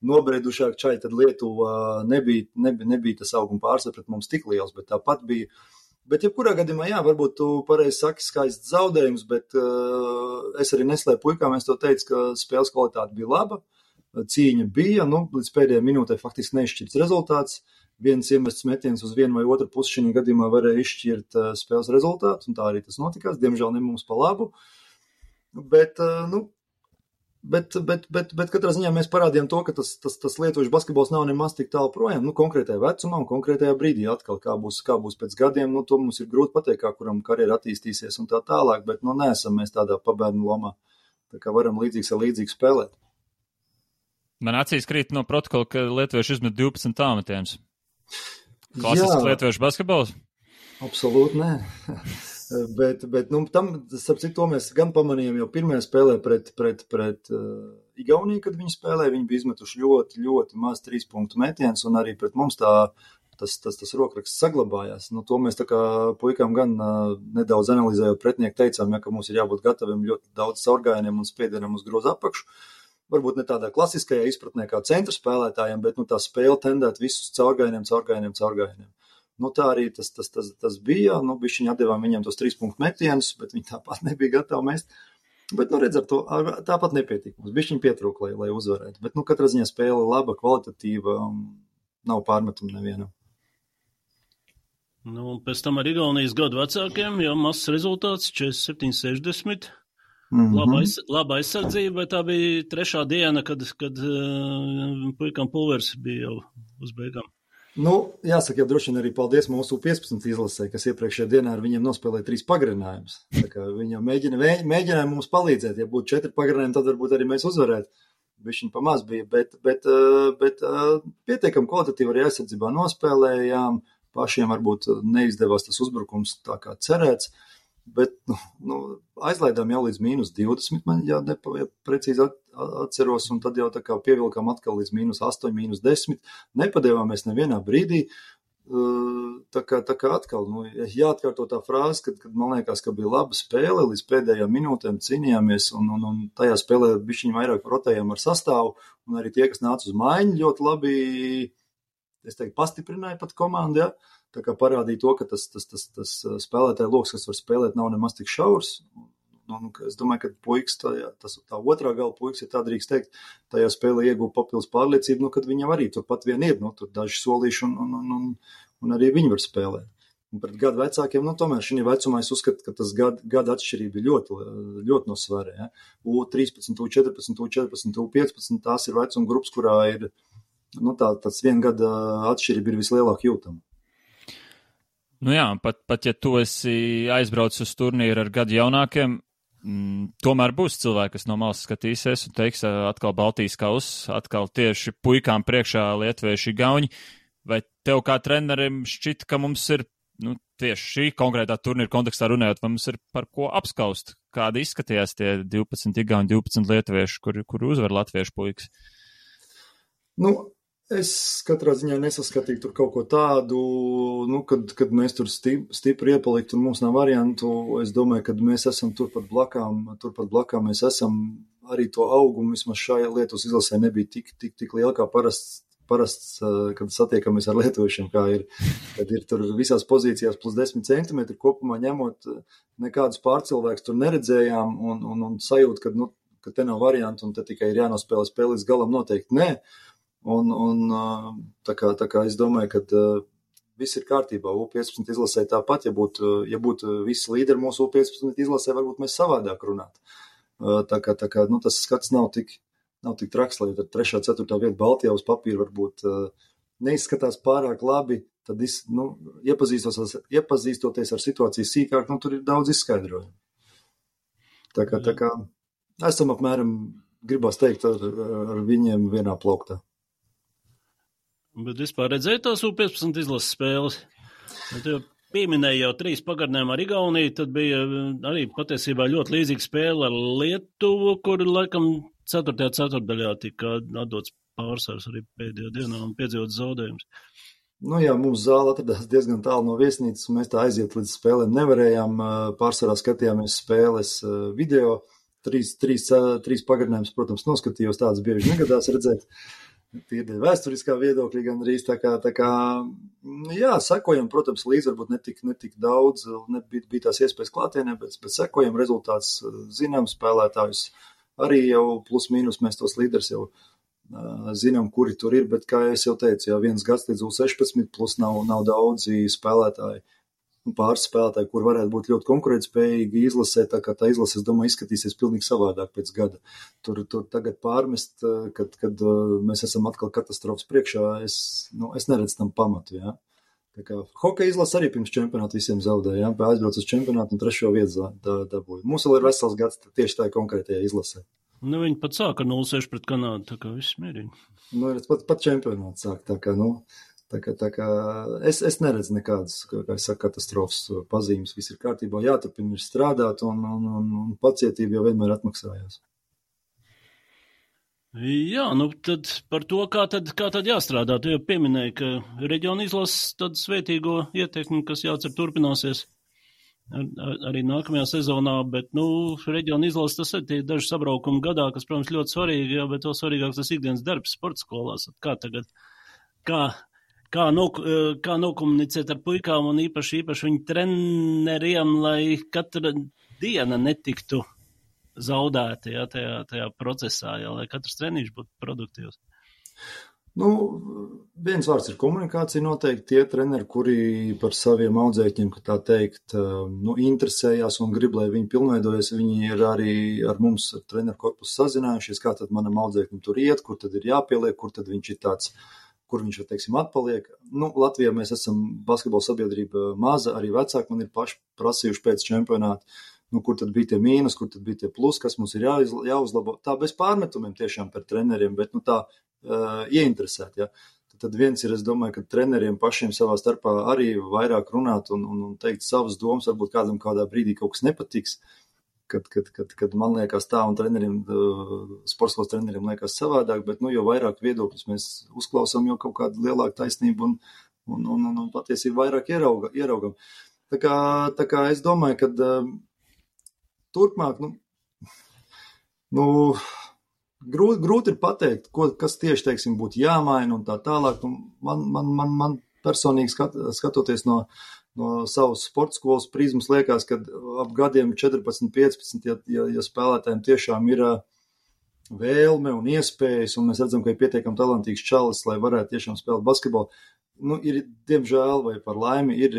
Speaker 3: nobriedušāk čaļi, tad Lietuva nebija tas auguma pārsvars pret mums tik liels, bet tāpat bija. Bet jebkurā gadījumā, jā, varbūt tu pareizi saki skaists zaudējums, bet es arī neslēpu puikām, es to teicu, ka spēles kvalitāte bija laba, cīņa bija, līdz pēdējai minūtei faktiski neizšķirts rezultāts, viens iemests metiens uz vienu vai otru pusi šī gadījumā varēja izšķirt spēles rezultātu, un tā arī tas notikās, diemžēl ne mums pa labu, bet katrā ziņā mēs parādījām to, ka tas lietuviešu basketbols nav nemaz tik tālu projām, konkrētajā vecumā un konkrētajā brīdī atkal, kā būs pēc gadiem, to mums ir grūti pateikt, kā kuram karjera attīstīsies un tā tālāk, bet neesam mēs tādā pabērnu lomā, tā kā varam līdzīgs ar līdzīgu spēlēt.
Speaker 1: Man acīs krīt no protokola, ka lietuvieši izmet 12 tāmetienus. Klasisks lietuviešu basketbols?
Speaker 3: Absolūti nē. Bet tam, starp citu, to mēs gan pamanījām jau pirmajā spēlē pret Igauniju, kad viņi spēlēja, viņi bija izmetuši ļoti, ļoti maz 3 punktu metiens, un arī pret mums tas rokraksts saglabājās. To mēs tā kā puikām gan nedaudz analizējot pretinieku teicām, ka mums ir jābūt gataviem ļoti daudz caurgājieniem un spiedienam uz grozu apakšu. Varbūt ne tādā klasiskajā izpratnē kā centra spēlētājiem, bet tā spēle tendēt visus caurgājieniem. Tā arī tas bija, bišķiņi atdevām viņiem tos 3 punktu metienus, bet viņi tāpat nebija gatavi mest. Bet, redz, ar to tāpat nepietika. Mums bišķiņi pietrūka, lai uzvarētu. Bet, katrā ziņā spēle laba, kvalitatīva, nav pārmetumu nevienam.
Speaker 2: Pēc tam ar Igaunijas gadu vecākiem jau mazs rezultāts 47-60. Laba aizsardzība, bet tā bija trešā diena, kad puikam pulvers bija jau uz beigām.
Speaker 3: Jāsaka, jau droši vien arī paldies mūsu 15 izlasē, kas iepriekšējā dienā ar viņiem nospēlēja 3 pagarinājumus. Tā kā viņi jau mēģināja mums palīdzēt, ja būtu 4 pagarinājumi, tad varbūt arī mēs uzvarētu. Bišķiņ pamaz bija, bet pietiekam kvalitatīvi arī aizsardzībā nospēlējām, pašiem varbūt neizdevās tas uzbrukums tā kā cerēts. Bet aizlaidām jau līdz -20, man precīzi atceros, un tad jau tā kā pievilkām atkal līdz -8, -10. Nepadevāmies nevienā brīdī. Tā kā atkal, jāatkārto tā frāze, kad man liekas, ka bija laba spēle, līdz pēdējām minūtēm cīnījāmies, un tajā spēlē bišķiņ vairāk rotējām ar sastāvu, un arī tie, kas nāca uz maiņu, ļoti labi, es teiktu, pastiprināja pat komandu, ja? Tā kā parādīja to, ka tas spēlētāja loks, kas var spēlēt, nav nemaz tik šaurs. Es domāju, ka puikas, tā otrā gala puikas, ja tā drīkst teikt, tajā spēlē iegūta papildus pārliecību, kad viņam arī turpat vien ir, tur daži solīši un arī viņi var spēlēt. un pret gadu vecākiem, tomēr šī vecumā es uzskatu, ka tas gada atšķirība ir ļoti, ļoti nosvērē. Ja? U13, U14, U14, U15, tās ir vecuma grupas, kurā ir, tāds 1 gada atšķirība ir vislielāk jūtama.
Speaker 1: Jā, pat ja tu esi aizbraucis uz turnīru ar gadu jaunākiem, tomēr būs cilvēki, kas no malas skatīsies un teiks atkal Baltijas kauss, atkal tieši puikām priekšā lietuvieši gauņi. Vai tev kā trenerim šķita, ka mums ir, tieši šī konkrētā turnīra kontekstā runājot, vai mums ir par ko apskaust? Kādi izskatījās tie 12 igauņi, 12 lietuvieši, kuri uzvar latviešu puikas?
Speaker 3: Es katrā ziņā nesaskatīju tur kaut ko tādu, kad mēs tur stipri iepalikt un mums nav variantu. Es domāju, ka mēs esam turpat blakām mēs esam arī to augumu, vismaz šajā Lietuvas izlasē nebija tik liela kā parasts, kad satiekamies ar lietuviešiem, kā ir, kad ir tur visās pozīcijās plus 10 centimetri kopumā ņemot, nekādus pārcilvēkus tur neredzējām un sajūt, ka te nav variantu un te tikai ir jānospēlē spēle līdz galam noteikti nē. Un tā kā es domāju, ka viss ir kārtībā. U15 izlasē tāpat, ja būtu visi līderi mūsu U15 izlasē, varbūt mēs savādāk runātu. Tā kā tas skats nav tik traks, lai tad 3. 4. vieta Baltijā uz papīra varbūt neizskatās pārāk labi, tad iepazīstoties ar situāciju sīkāk, tur ir daudz izskaidrojumu. Tā kā esam apmēram, gribās teikt, ar viņiem vienā plauktā.
Speaker 2: Bet vispār redzēju tās U15 izlases spēles. Tu pieminēji jau 3 pagarinājumu ar Igauniju, tad bija arī patiesībā ļoti līdzīga spēle ar Lietuvu, kur laikam 4. ceturtdaļā tika atdots pārsvars arī pēdējā dienā un piedzīvot zaudējums.
Speaker 3: Jā, mums zāle atradās diezgan tālu no viesnīcas, un mēs tā aiziet līdz spēlēm nevarējām. Pārsvarā skatījāmies spēles video. 3 pagarinājumus, protams, noskatījos, tādas bieži negadās redzēt. Tīri vēsturiskā viedokļa gandrīz tā kā, sekojam, protams, līdz varbūt netik daudz, bija tās iespējas klātienē, bet sekojam rezultāts, zinām spēlētājus, arī jau plus mīnus mēs tos līderis jau zinām, kuri tur ir, bet kā es jau teicu, 1 gads līdz U16 plus nav daudzi spēlētāji, pāris spēlētāji, kur varētu būt ļoti konkurētspējīgi izlasē, tā kā tā izlase, es domāju, izskatīsies pilnīgi savādāk pēc gada. Tur tagad pārmest, kad mēs esam atkal katastrofas priekšā, es neredzu tam pamatu, jā. Tā kā hokeja izlase arī pirms čempionāta visiem zaudēja, jā, aizbrauc uz čempionātu un 3. vietu dabūja. Mums vēl ir vesels gads tieši tā konkrētajā izlasē.
Speaker 2: Viņi pat sāka ar 0-6 pret Kanādu, tā kā viss mierīgi.
Speaker 3: Pat čempionāts sāk, tā kā, es neredzu nekādas, kā es saku, katastrofas pazīmes, viss ir kārtībā, jāturpina strādāt un pacietība jau vienmēr atmaksājās.
Speaker 2: Jā, tad par to, kā tad jāstrādā. Tu jau pieminēji, ka reģiona izlases tad svētīgo ietekmi, kas jācer turpināsies arī nākamajā sezonā, bet, reģiona izlases tas ir tie daži sabraukumi gadā, kas, protams, ļoti svarīgi, jā, bet vēl svarīgāks tas ikdienas darbs sporta skolās. Kā tagad, kā nokomunicēt ar puikām un īpaši viņu treneriem, lai katra diena netiktu zaudēta, jā, tajā procesā, jā, lai katrs treniņš būtu produktīvs?
Speaker 3: Viens vārds ir komunikācija noteikti. Tie treneri, kuri par saviem audzēkņiem, ka tā teikt, interesējās un grib, lai viņi pilnveidojas, viņi ir arī ar mums, ar treneru korpusu sazinājušies, kā tad manam audzēkņam tur iet, kur tad ir jāpieliek, kur tad viņš ir tāds, kur viņš, teiksim, atpaliek. Latvijā mēs esam basketbola sabiedrība maza, arī vecāki man ir paši prasījuši pēc čempionāta, kur tad bija tie mīnus, kur tad bija tie plus, kas mums ir jāuzlabo. Tā bez pārmetumiem tiešām par treneriem, bet tā ieinteresēt, ja. Tad viens ir, es domāju, ka treneriem pašiem savā starpā arī vairāk runāt un teikt savas domas, varbūt kādam kādā brīdī kaut kas nepatiks, kad man liekas tā un treneriem, sportskolas treneriem liekas savādāk, bet, jo vairāk viedokļus mēs uzklausām, jo kaut kāda lielāka taisnība un patiesība vairāk ieraugam. Tā kā es domāju, ka turpmāk, grūti ir pateikt, kas tieši, teiksim, būtu jāmaina un tā tālāk. Man personīgi skatoties no savas sporta skolas prizmas liekas, ka ap gadiem 14, 15, ja spēlētājiem tiešām ir vēlme un iespējas, un mēs redzam, ka ir pietiekami talantīgs čalis, lai varētu tiešām spēlēt basketbolu. Ir, diemžēl, vai par laimi, ir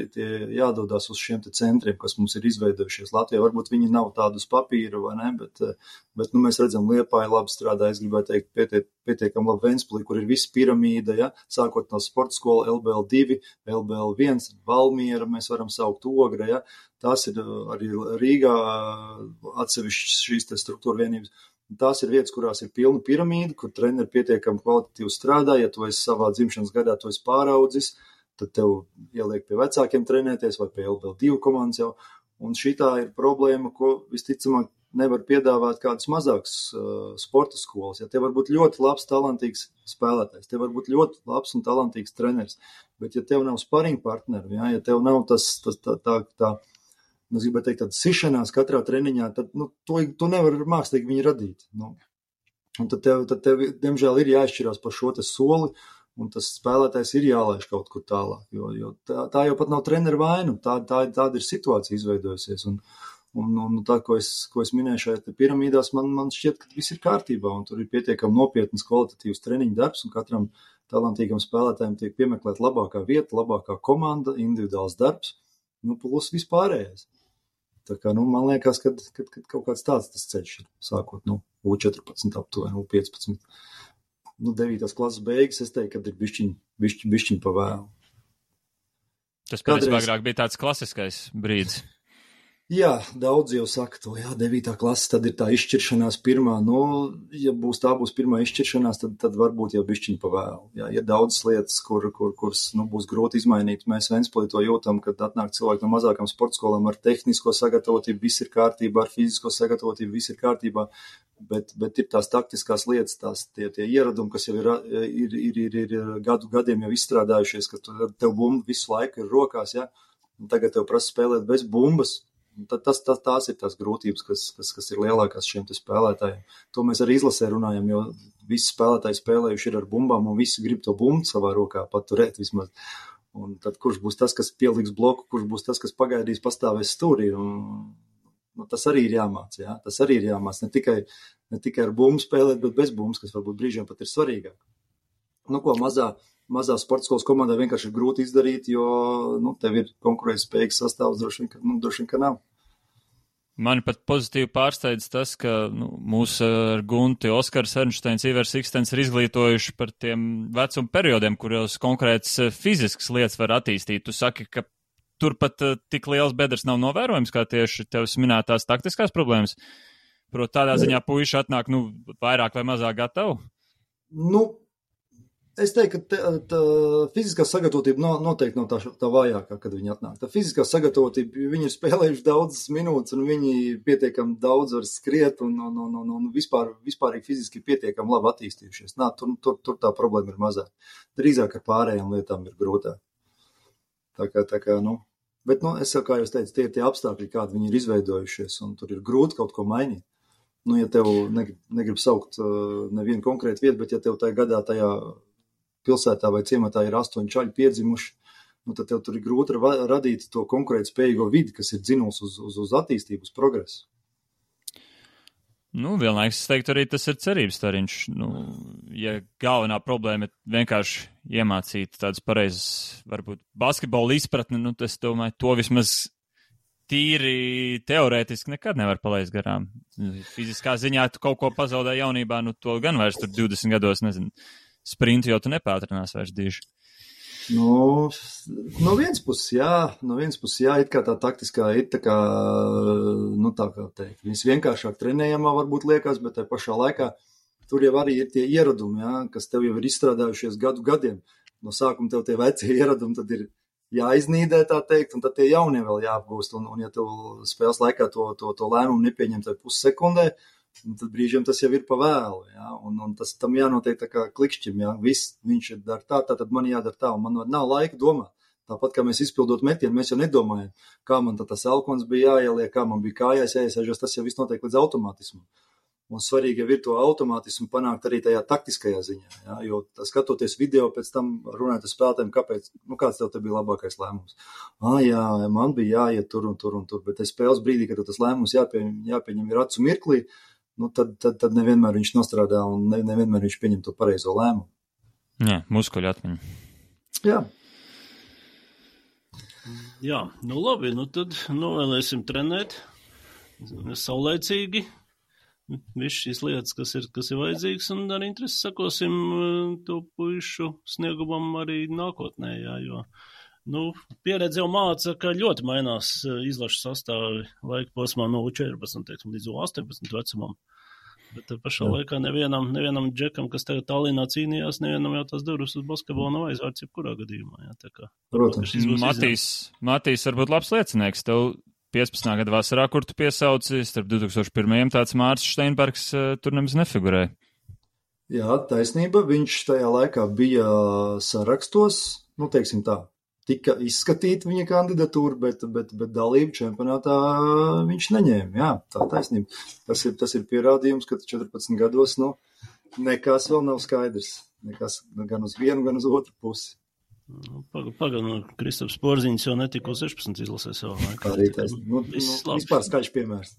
Speaker 3: jādodās uz šiem te centriem, kas mums ir izveidojušies Latvijā. Varbūt viņi nav tādu uz papīra, vai ne, bet mēs redzam, Liepāja labi strādā, es gribētu teikt, pietiekam labi Ventspilī, kur ir visa piramīda, ja, sākot no sporta skola LBL2, LBL1, Valmiera, mēs varam saukt Ogra, ja, tās ir arī Rīgā atsevišķas šīs te struktūra vienības. Tās ir vietas, kurās ir pilna piramīda, kur treneri pietiekami kvalitatīvi strādā. Ja tu esi savā dzimšanas gadā, tu esi pāraudzis, tad tev ieliek pie vecākiem trenēties vai pie LBL2 komandas jau. Un šitā ir problēma, ko visticamāk nevar piedāvāt kādas mazākas sporta skolas. Ja tev var būt ļoti labs, talantīgs spēlētājs, tev var būt ļoti labs un talantīgs treneris, bet ja tev nav sparring partneri, ja tev nav tā es gribētu teikt, tāda sišanās katrā treniņā, tad to nevar mākslīgi viņi radīt. Un tad tev, diemžēl, ir jāizšķirās par šo te soli, un tas spēlētājs ir jālaiž kaut kur tālāk, jo tā jau pat nav treneru vaina, tāda ir situācija izveidojusies. Un tā, ko es minēju šajā piramīdās, man šķiet, ka viss ir kārtībā, un tur ir pietiekami nopietnas kvalitatīvas treniņu darbs, un katram talantīgam spēlētājiem tiek piemeklēt labākā vieta, labākā komanda, individuāls darbs, plus vispārējais. Tā kā, man liekas, ka kaut kāds tāds tas ceļš ir, sākot, U14 aptuveni, U15. 9. klases beigas, es teiktu, kad ir bišķiņ pa vēlu.
Speaker 1: Tas patiesībā agrāk bija tāds klasiskais brīdis.
Speaker 3: Jā, daudz jau saka to, 9. klase, tad ir tā izšķiršanās pirmā. Ja tā būs pirmā izšķiršanās, tad varbūt jau bišķiņ pa vēlu. Jā, ir daudz lietas, kuras būs grūti izmainīt. Mēs Ventspilī to jūtam, kad atnāk cilvēki no mazākām sportskolām ar tehnisko sagatavotību, viss ir kārtībā, ar fizisko sagatavotību, viss ir kārtībā, bet ir tās taktiskās lietas, tie ieradumi, kas jau ir gadiem jau izstrādājušies, ka tev bumba visu laiku ir rokās, ja? Un tagad tev prasa spēlēt bez bumbas. Tās ir tās grūtības, kas ir lielākās šiem te spēlētājiem. To mēs arī izlasē runājam, jo visi spēlētāji spēlējuši ir ar bumbām, un visi grib to bumbu savā rokā paturēt vismaz. Un tad kurš būs tas, kas pieliks bloku, kurš būs tas, kas pagaidīs pastāvēs stūrī. Tas arī ir jāmāc, jā. Tas arī ir jāmāc. Ne tikai ar bumbu spēlēt, bet bez bumbas, kas varbūt brīžiem pat ir svarīgāk. Mazā sporta skolas komandā vienkārši ir grūti izdarīt, jo tev ir konkurētspējīgs sastāvs, droši vien, ka nav.
Speaker 1: Mani pat pozitīvi pārsteidz tas, ka mūs ar Gunti, Oskars Ernšteins, Ivers Ikstens ir izglītojuši par tiem vecuma periodiem, kuros konkrētas fiziskas lietas var attīstīt. Tu saki, ka turpat tik liels bedres nav novērojams, kā tieši tevis minētās taktiskās problēmas. Proti tādā ziņā puiši atnāk, vairāk vai mazāk gatavu?
Speaker 3: Es teiktu, ka fiziskā sagatavotība noteikti nav tā vājākā, kad viņi atnāk. Tā fiziskā sagatavotība, viņi ir spēlējuši daudzas minūtes, un viņi pietiekami daudz var skriet, un vispārīgi fiziski pietiekami labi attīstījušies. Tur tā problēma ir mazāk. Drīzāk ar pārējām lietām ir grūtāk. Tā kā. Bet, es jau, kā jūs teicu, tie ir tie apstākļi, kādi viņi ir izveidojušies, un tur ir grūti kaut ko mainīt. Ja tev negrib saukt nevienu konkrētu vietu, bet ja tev tajā gadā tajā pilsētā vai ciematā ir 8 čaļi piedzimuši, tad tev tur ir grūti radīt to konkurētspējīgo vidi, kas ir dzinuls uz attīstību, uz progresu.
Speaker 1: Vienlaikus es teiktu arī tas ir cerības stariņš. Ja galvenā problēma ir vienkārši iemācīt tādas pareizas, varbūt basketbola izpratni, es domāju, to vismaz tīri teorētiski nekad nevar palaist garām. Fiziskā ziņā tu kaut ko pazaudē jaunībā, to gan vairs tur 20 gados, nezinu. Sprintu jau tu nepātrinās vairs diži.
Speaker 3: No vienas puses, jā, it kā tā taktiskā ir tā kā teikt, viņas vienkāršāk trenējamā varbūt liekas, bet tai pašā laikā tur jau arī ir tie ieradumi, jā, kas tev jau ir izstrādājušies gadiem. No sākuma tev tie veci ieradumi tad ir jāiznīdē, tā teikt, un tad tie jaunie vēl jāapgūst, un ja tev spēles laikā to lēmumu nepieņem tai pussekundē, tad brīžiem tas jau ir pa vēlu, jā, un tas tam jānotiek tā kā klikšķim, jā, viņš ir dar tā, tad man jādara tā, un man nav laika domāt. Tāpat, kā mēs izpildot metienu, mēs jau nedomājam, kā man tas elkons bija jāieliek, kā man bija kājās jāiesēžas, tas jau viss notiek līdz automātismu. Un svarīgi jau ir to automātismu panākt arī tajā taktiskajā ziņā, jā, jo skatoties video, pēc tam runāt ar spēlētājiem, kāds tev te bija labākais lēmums. Jā, man bija jāiet tur un tur, bet spēles brīdī, kad tas lēmums jāpieņem ir acu mirklī, tad nevienmēr viņš nostrādā un nevienmēr viņš pieņem to pareizo lēmumu.
Speaker 1: Jā, muskuļu atmiņa.
Speaker 3: Jā.
Speaker 2: Jā, nu labi, nu tad novēlēsim trenēt saulēcīgi visu šīs lietas, kas ir vajadzīgas, un ar interesi sakosim to puišu sniegumam arī nākotnē, jā, jo pieredze jau māca, ka ļoti mainās izlašu sastāvi laika posmā no U14, teiksim, līdz U18 vecumam. Bet pašā laikā nevienam džekam, kas tagad Tallinā cīnījās, nevienam jau tās durvis uz basketbolu nav aizvērts jebkurā gadījumā. Jā, tā kā,
Speaker 3: protams.
Speaker 1: Matīs varbūt labs liecinieks. Tev 15. gada vasarā, kur tu piesauci, starp 2001. tāds Mārcis Steinbergs tur nemaz nefigurēja.
Speaker 3: Jā, taisnība. Viņš tajā laikā bija sarakstos, teiksim tā. Tika izskatīta viņa kandidatūra, bet dalību čempionātā viņš neņēma. Jā, tā taisnība. Tas ir pierādījums, ka 14 gados nekas vēl nav skaidrs. Nekas gan uz vienu, gan uz otru pusi.
Speaker 2: Pagaidām, Kristaps Porziņš jau netika uz 16 izlasē savā laikā.
Speaker 3: Arī taisnība. Vispār skaļš piemērs.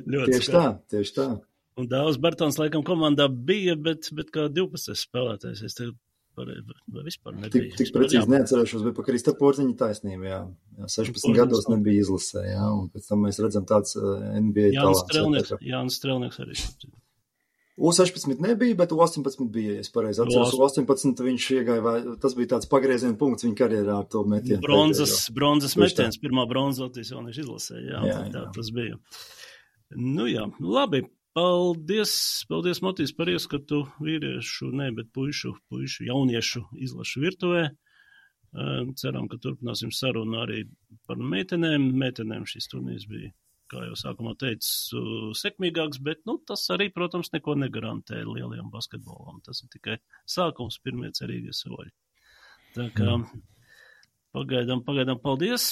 Speaker 3: Tieši tā.
Speaker 2: Un Dāvs Bartons laikam komandā bija, bet kā 12 spēlētājs. Es tev vispār nebija.
Speaker 3: Tik precīzi neatcerēšos, bet pa Krista Porziņa taisnība, jā. 16 gados nebija izlasē, jā, un pēc tam mēs redzam tāds NBA talants.
Speaker 2: Jānis Strelnieks arī.
Speaker 3: U16 nebija, bet U18 bija, ja es pareizi atceros. U18 viņš iegāja, tas bija tāds pagrieziena punkts viņa karjerā ar to metienu.
Speaker 2: Bronzas metiens, pirmā bronza Latvijas jauniešu izlasē, jā, tas bija. Jā, labi. Paldies, Matīs, par ieskatu puišu jauniešu izlašu virtuvē. Ceram, ka turpināsim sarunu arī par meitenēm. Meitenēm šis turnīrs bija, kā jau sākumā teicu, sekmīgāks, bet tas arī, protams, neko negarantē lielajam basketbolam. Tas ir tikai sākums, pirmie cerīgie soļi. Tā kā pagaidām paldies.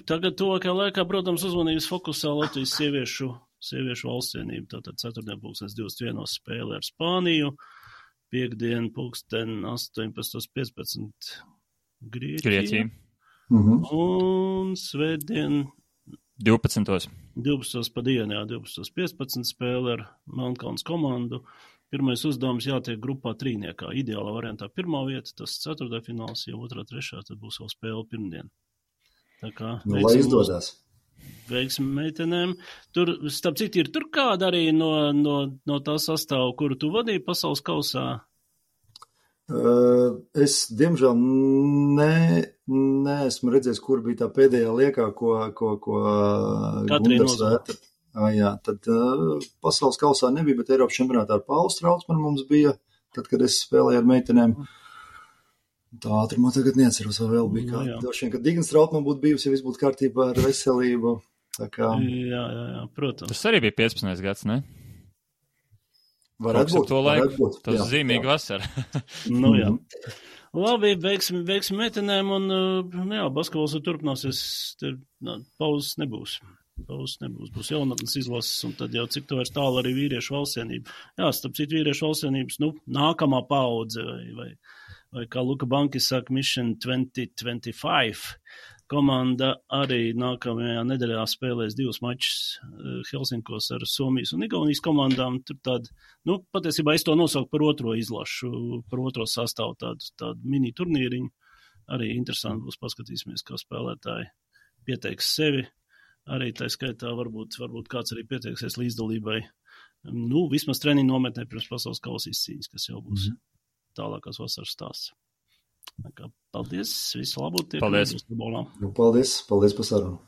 Speaker 2: Tagad tuvākajā laikā, protams, uzmanības fokusā Latvijas sieviešu valstsienību. Tātad 4.21. spēle ar Spāniju, piekdien 18.15 Grieķija. Un svētdien
Speaker 1: 12.
Speaker 2: pa dienu, 12.15 spēle ar Melnkalnes komandu. Pirmais uzdevums jātiek grupā trīniekā. Ideālā variantā pirmā vieta, tas ceturtdaļfināls, ja otrā, trešā, tad būs vēl spēle pirmdien. Tā kā
Speaker 3: lai izdodās.
Speaker 2: Veiksim meitenēm. Tur, starp citu, ir tur kāda arī no tā sastāva, kuru tu vadīji pasaules kausā?
Speaker 3: Es, diemžēl, neesmu redzējis, kur bija tā pēdējā liekā, ko Gundars Vētra. Jā, tad pasaules kausā nebija, bet Eiropas čempionātā ar Paulu Straucmanu mums bija, tad, kad es spēlēju ar meitenēm. Tā ātrumā tagad neatceros, vai vēl bija kāda. Došiem, ka Dignas Trautman būtu bijusi, ja viss būtu kārtībā ar veselību. Tā kā...
Speaker 2: Jā, protams.
Speaker 1: Tas arī bija 15. gads, ne?
Speaker 3: Varētu būt.
Speaker 1: Tas zīmīgi vasara.
Speaker 2: Jā. Labi, veiksim meitenēm un, basketbols turpināsies, pauzes nebūs. Būs jaunatnes izlases, un tad jau cik to vairs tālu arī vīriešu valstsienība. Jā, starp citu vīriešu valstsienības, nākamā paudze, vai kā Luka Bankis saka, Mission 2025 komanda arī nākamajā nedēļā spēlēs 2 mačus Helsinkos ar Somijas un Igaunijas komandām. Tur tāda, patiesībā es to nosauku par otro izlašu, par otro sastāvu tādu mini turnīriņu. Arī interesanti būs, paskatīsimies, kā spēlētāji pieteiks sevi. Arī tā skaitā varbūt kāds arī pieteiksies līdzdalībai. Vismaz treniņu nometnē pirms pasaules kausa izcīņas, kas jau būs tālākās vasaras stāsts. Paldies, visu labu.
Speaker 1: Paldies.
Speaker 3: Paldies par sarunu.